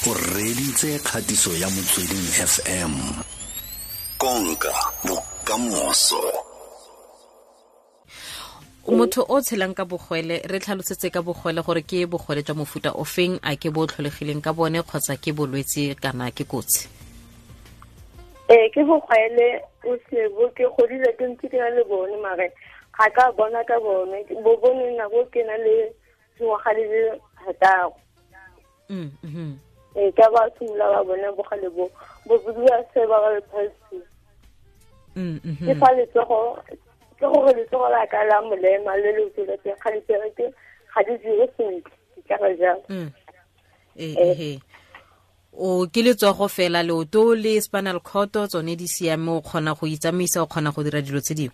O reditse kgatiso ya Motsweding FM. Konka bokamoso. Motho o tshelang ka bogwele, re tlhalosetse ka bogwele gore ke bogwele jwa mofuta o feng, a ke bo tlholegileng ka bone kgotsa ke bolwetse kana ke kotsi? Ee, ke bogwele o sebo, ke godile ke ntse ke na le bone, mare ga ka bona ka bone, bo bone nako ke na le dingwaga di le 6. Ee, ka ba simolola ba bone bogale bo, bo bidiwa cerebral palsy. Ke fa letsogo, ke gore letsogo la ka la molema le le tsweletseng ga di bereke, ga di dire sentle, ke tla re jalo. Ee, o ke letsogo fela, leoto le spinal cord tsone di siame, o kgona go itsamaisa, o kgona go dira dilo tse dingwe?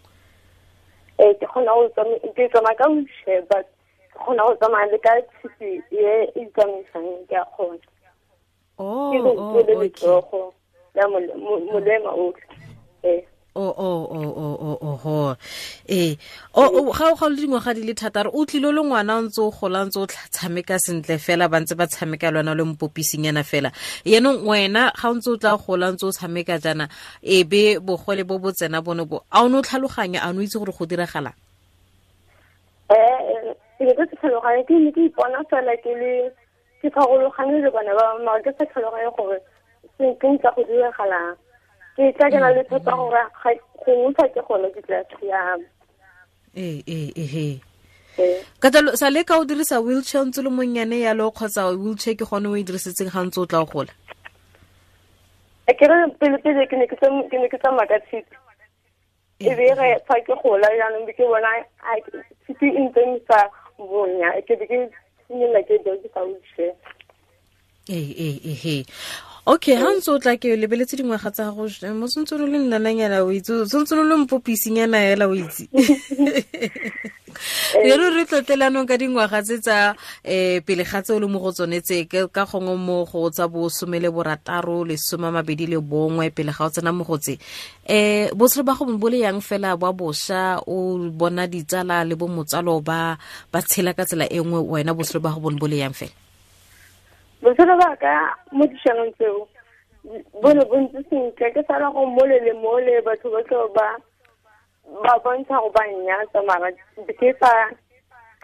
Ee, ke kgona go tsamaya, ke tsamaya ka wheelchair, but ke kgona go tsamaya le ka tshipi e e itsamaisang, ke a kgona. Oh, Ke oh, leoto le okay. letsogo la molema otlhe. Ee. Oh. Ee. O ga o le dingwaga di le 6, o tlile le ngwana o ntse o gola, ntse o tshameka sentle fela, ba ntse ba tshameka le wena le mpopising fela. Yaanong wena ga o ntse o tla gola, ntse o tshameka jaana, e be bogole bo bo tsena bone bo, a o ne o tlhaloganya, a o ne o itse gore go diragalang? Ke ne ke se tlhaloganye, ke ne ke ipona fela ke le, ke farologane le bana ba bangwe, mara ke sa tlhaloganye gore se ke ntse go diragalang. Ke tla ke na le tshepo gore gongwe fa ke gone ke tla siama. Ee. Ee. Ka jalo, sa le ka o dirisa wheelchair ntse le monnyane yalo, kgotsa wheelchair ke gone o e dirisitseng ga ntse o tla o gola? Ke re pele pele ke ne ke ke ne ke tsamaya ka tshipi. E be re fa ke gola jaanong be ke bona, a, tshipi e ntse e sa bonya, ke be ke simolola ke dirisa wheelchair. Ee. Okay, ha ntse o tla ke lebeletse dingwaga tsa gago, mo sentse o le nnananyana o itse, o sentse o le mpopisingana hela o itse. Re re tlotlelanong ka dingwaga tse tsa, pele ga tse o le mo go tsone tse, ka gongwe mo go tsa bo 16, 21, pele ga o tsena mo go tse. Botshelo ba go bo le yang fela ba bosha, o bona ditsala le bo motsalo ba tshela ka tsela e nngwe, wena botshelo ba go bo le yang fela? Botshelo ba ka mo dišanong tseo bo ne bo ntse sentle, ke sala go mole le mole, batho ba tlo ba bontsha go ba nnyatsa, mara ke sa,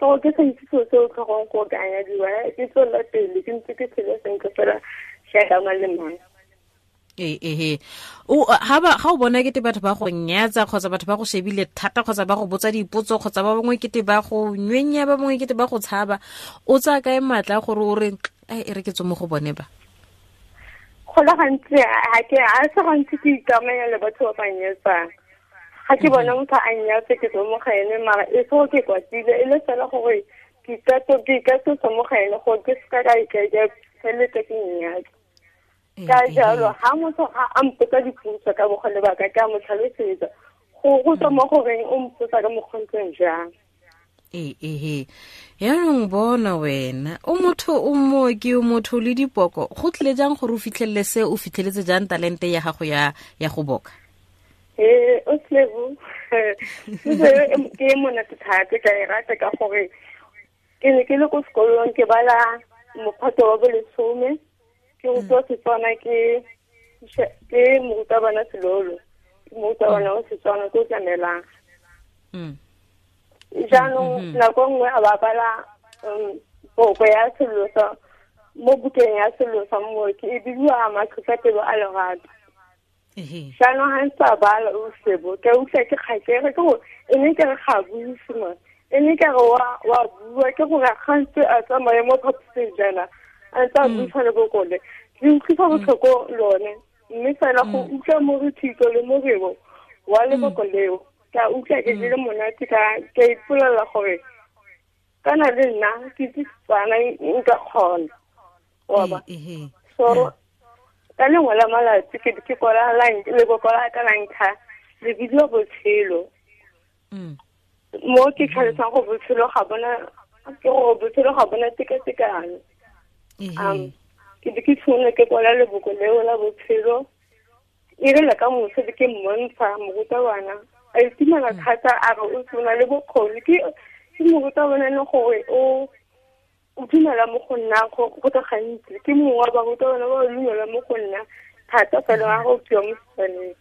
ke gore ke sa itse selo se o tlhokang go ka nyadiwa, ke tswelela pele, ke ntse ke tshele sentle fela jaaka mang le mang. Ee. O, ha ba, ga o bona kete batho ba go nyatsa, kgotsa batho ba go shebile thata, kgotsa ba go botsa dipotso, kgotsa ba bangwe kete ba go nywenya, ba bangwe kete ba go tshaba, o tsaya kae maatla gore o re, ai, e re ke tswe mo go bone ba? Go le gantsi, ha ke, ha se gantsi ke ikamanya le batho ba ba nyatsang. Ga ke bona motho a nnyatsa, ke tswe mo ga ene, mara e se gore ke kwatile, e le fela gore ke ikatosa mo ga ene gore ke seka ka ka feleletsa ke nnyatsa. Ka jalo, ha motho ga a mpotsa dipotso ka bogole ba ka, ke a mo tlhalosetsa. Go tswa mo goreng o mpotsa ka mokgwa o ntseng jang. Ee. Yaanong bona wena, o motho o mooki, o motho le dipoko, go tlile jang gore o fitlhelele se, o fitlheletse jang talente ya gago ya go boka? Ee, o Slebo. Ke e monate thata, ke a e rata ka gore ke ne ke le ko sekolong, ke bala mophato wa bolesome, ke rutiwa Setswana ke morutabana Selolo, ke morutabana wa Setswana ko Tlamelang. Jaanong nako nngwe a ba bala, poko ya sello sa, mo bukeng ya sello sa mooki, e bidiwa Matlhotlhapelo a Lerato. Jaanong ga ntse a bala o Sebo, ke utlwa ke kgakere, ke gore e ne ke re ga buise man, e ne ke re wa bua, ke gore ga ntse a tsamaye mo phaposing jaana, a ntse a buisa le bokole, le utlwisa botlhoko lone, mme fela go utlwa morithito le morebo wa leboko leo, ke a utlwa ke le monate, ke a ipolelela gore kana le nna ke itse Setswana, nka kgona. Wa ba? So, ka lengwe la malatsi ke ke kwala leboko la ka la ntlha, le bidiwa Botshelo. Mo ke tlhalosang gore botshelo ga bona, ke gore botshelo ga bona tekatekano. Ke be ke tshwanela ke kwala leboko leo la botshelo. E rile ka moso be ke mmontsha morutabana, a itumela thata, a re o na le bokgoni. Ke morutabana e leng gore o o dumela mo go nna go le gantsi, ke mongwe wa barutabana ba dumela mo go nna thata fela ga go fiwa mo Setswaneng.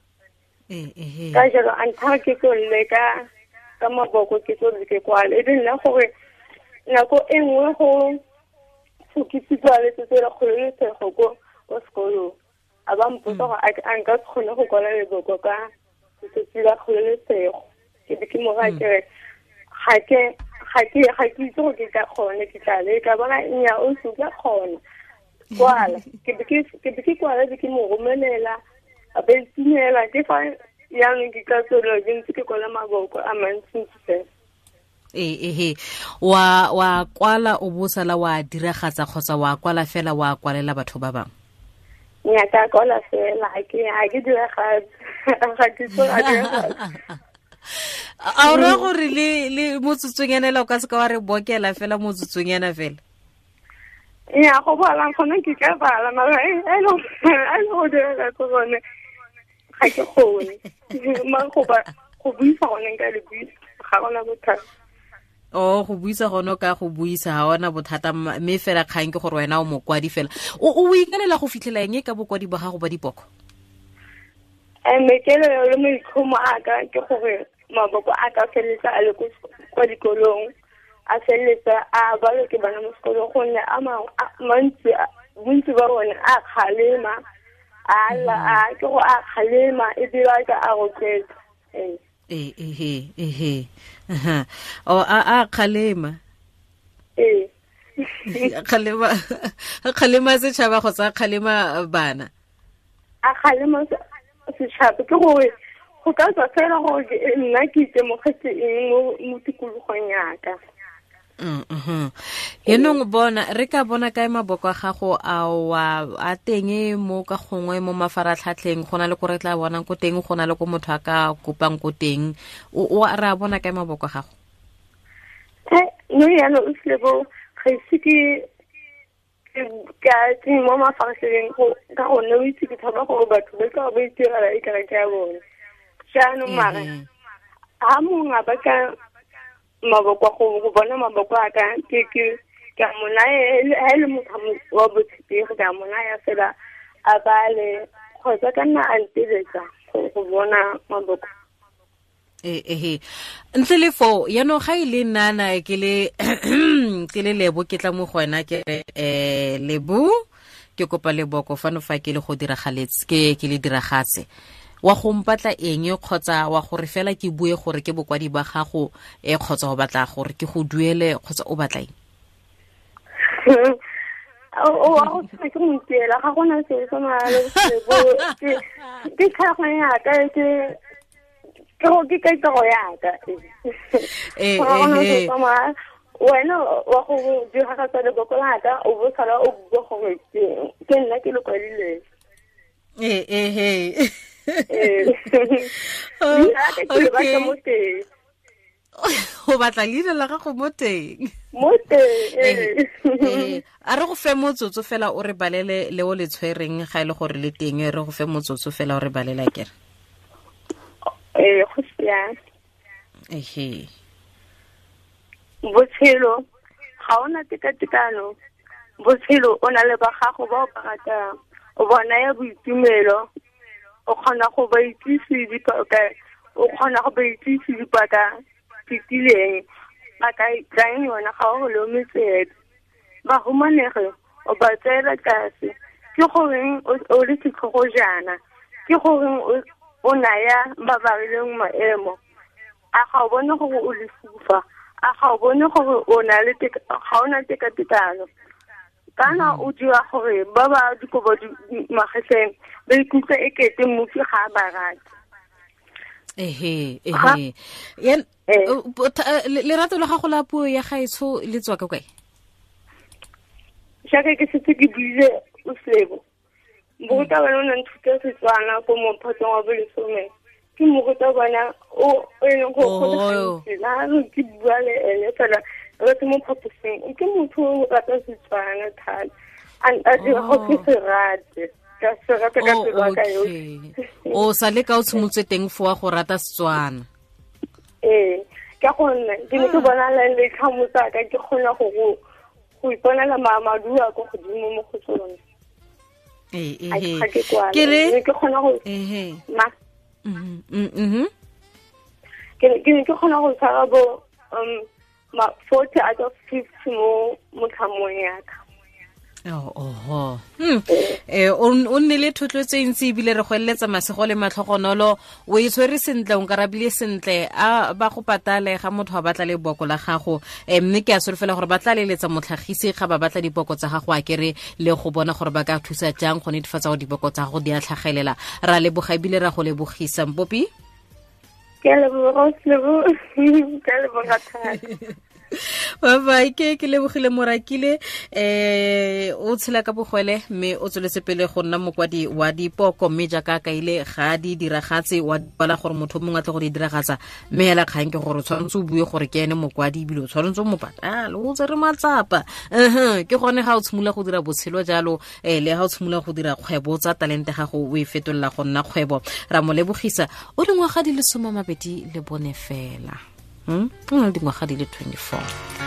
Ka jalo a nthaya ke tlo leka ka maboko, ke tlo ke kwale, e be nna gore nako e nngwe go fokisiwa letsatsi la kgololosego ko sekolong, a ba mpotsa gore a nka se kgone go kwala leboko ka letsatsi la kgololosego. Ke be ke mo raya ke re ga ke itse gore ke tla kgona, ke tla leka. Bona nnyaa, o se tla kgona kwala. Ke be ke kwala, be ke mo romelela, a be itumela. Ke fa jaanong ke ka tswelela ke ntse ke kwala maboko a mantsintsi fela. Ehe, wa kwala o bo sala wa diragatsa kgotsa wa kwala fela wa kwalela batho ba bangwe? Nnyaa, ka kwala fela, ga ke diragatse, ga ke tso a diragatse. A o raya gore le motsotsonyana o ka se ka wa re bokela fela motsotsonyana fela? Nnyaa, go bala gone ke ka bala, mara e le go diragatsa gone ga ke kgone. Mara go buisa gone nka le buisa, ga gona bothata. O go buisa gone ka go buisa ga ona bothata, mme fela kgang ke gore wena o mokwadi fela. O ikaelela go fitlhela eng ka bokwadi ba gago ba dipoko? Maikaelelo le maitlhomo a ka ke gore maboko a ka feleletsa a le kwa dikolong, a feleletsa a balwe ke bana mo sekolong, gonne a mantsi, bontsi ba bone a kgalema, a ke go a kgalema ebile a ka a rotloetsa. Ehe. O a kgalema. Ee. Kgalema setšhaba kgotsa kgalema bana? A kgalema setšhaba, ke gore go ka tswa fela gore nna ke itemogetse eng mo tikologong yaka. Yaanong bona re ka bona kae maboko a gago a teng mo ka gongwe mo mafaratlhatlheng, go na le ko re tla bonang ko teng, go na le ko motho a ka kopang ko teng, o re a bona kae maboko a gago? No yaanong o Selebo, ga ise ke ka mo mafaratlhatlheng ka gonne o itse ke tshaba gore batho ba tla ba itirela e kare ke ya bone. Jaanong mara ha mongwe a batla maboko go bona maboko a ka, ke ka mo naya, ha e le motho wa botshepegi ka mo naya fela a bale, kgotsa ka nna a nteletsa go bona maboko. Ehe, ntle le foo yaanong ga e le nnana ke le Lebo, ke tla mo go wena ke re Lebo, ke kopa leboko fano fa ke le go diragaletse, ke le diragatse, wa go mpatla eng kgotsa wa gore fela ke bue gore ke bokwadi ba gago, kgotsa o batla gore ke go duele, kgotsa o batla eng? O wa go tshwana ke montiela, ga gona selo se maalo Lebo, ke tlhago yaka, ke kaitego yaka. Wena wa go diragatsa leboko laka, o bo sala o bua gore ke nna ke le kwadileng. Ehe. Okay. O batla leina la gago mo teng? Mo teng. A re go fe motsotso fela o re balele le o le tshwereng, ga e le gore le teng, re go fe motsotso fela o re balela kere. Go siame. Ehe. Botshelo ga ona tekatekano, botshelo o na le ba gago ba o ba ratang, o ba naya boitumelo, o kgona go ba itsise dipaka fetileng, ba ka tlang yona ga o lome tsebe. Bahumanegi o ba tseela tlase, ke goreng o le setlhogo jaana, ke goreng o naya ba ba rileng maemo, a ga o bone gore o lefufa, a ga o bone gore o na le ga o na tekatekano, kana o dira gore ba ba dikobo magetleng ba ikutlwe e kete mmupi ga a ba rate. Ehe. Lerato la gago la puo ya gaetsho le tswa ka kae? Jaaka ke setse ke buile o Selebo, morutabana o ne nthuta Setswana ko mophatong wa bolesome, ke morutabana o e leng gore go le gantsi la ke bua le ene fela re se mo phaposing, ke motho o rata Setswana thata, a dira gore ke se rate, ka se rata ka pelo ya ka yotlhe. O sa le ka o tshimotse teng fo wa go rata Setswana? Ee, ka gonne ke ne ke bona le tlhamo tsaka ke kgona go go iponela maduo a ko godimo mo go tsone. Ke re ke kgona go ma ke ne ke kgona go tshwara bo ma 40 out of 50 mo motlhamong ya ka. Oho. O nnile thotloetso e ntsi ebile re go eletsa masego le matlhogonolo. O e tshwere sentle, o nkarabile sentle. A ba go patale ga motho a batla leboko la gago. Mme ke a solofela gore ba tla leletsa motlhagisi ga ba batla diboko tsa gago, a kere le go bona gore ba ka thusa jang go netefatsa gore diboko tsa gago di a tlhagelela. Ra leboga ebile ra go lebogisa, Mpopi. Ke a leboga, ke a leboga thata. Bye bye. Ke lebogile Morakile, o tshela ka bogwele mme o tsweletse pele go nna mokwadi wa dipoko, mme jaaka kaile ga di diragatse wa bala gore motho mongwe a tle go di diragatsa, mme hela kgang ke gore o tshwanetse o bue gore ke ene mokwadi ebile o tshwanetse o mo patale, o tsere matsapa. Ke gone ga o tshimolola go dira botshelo jalo, le ga o tshimolola go dira kgwebo tsa talente gago o e fetolela go nna kgwebo. Ra mo lebogisa, o dingwaga di le 24 fela. O na le dingwaga di le 24.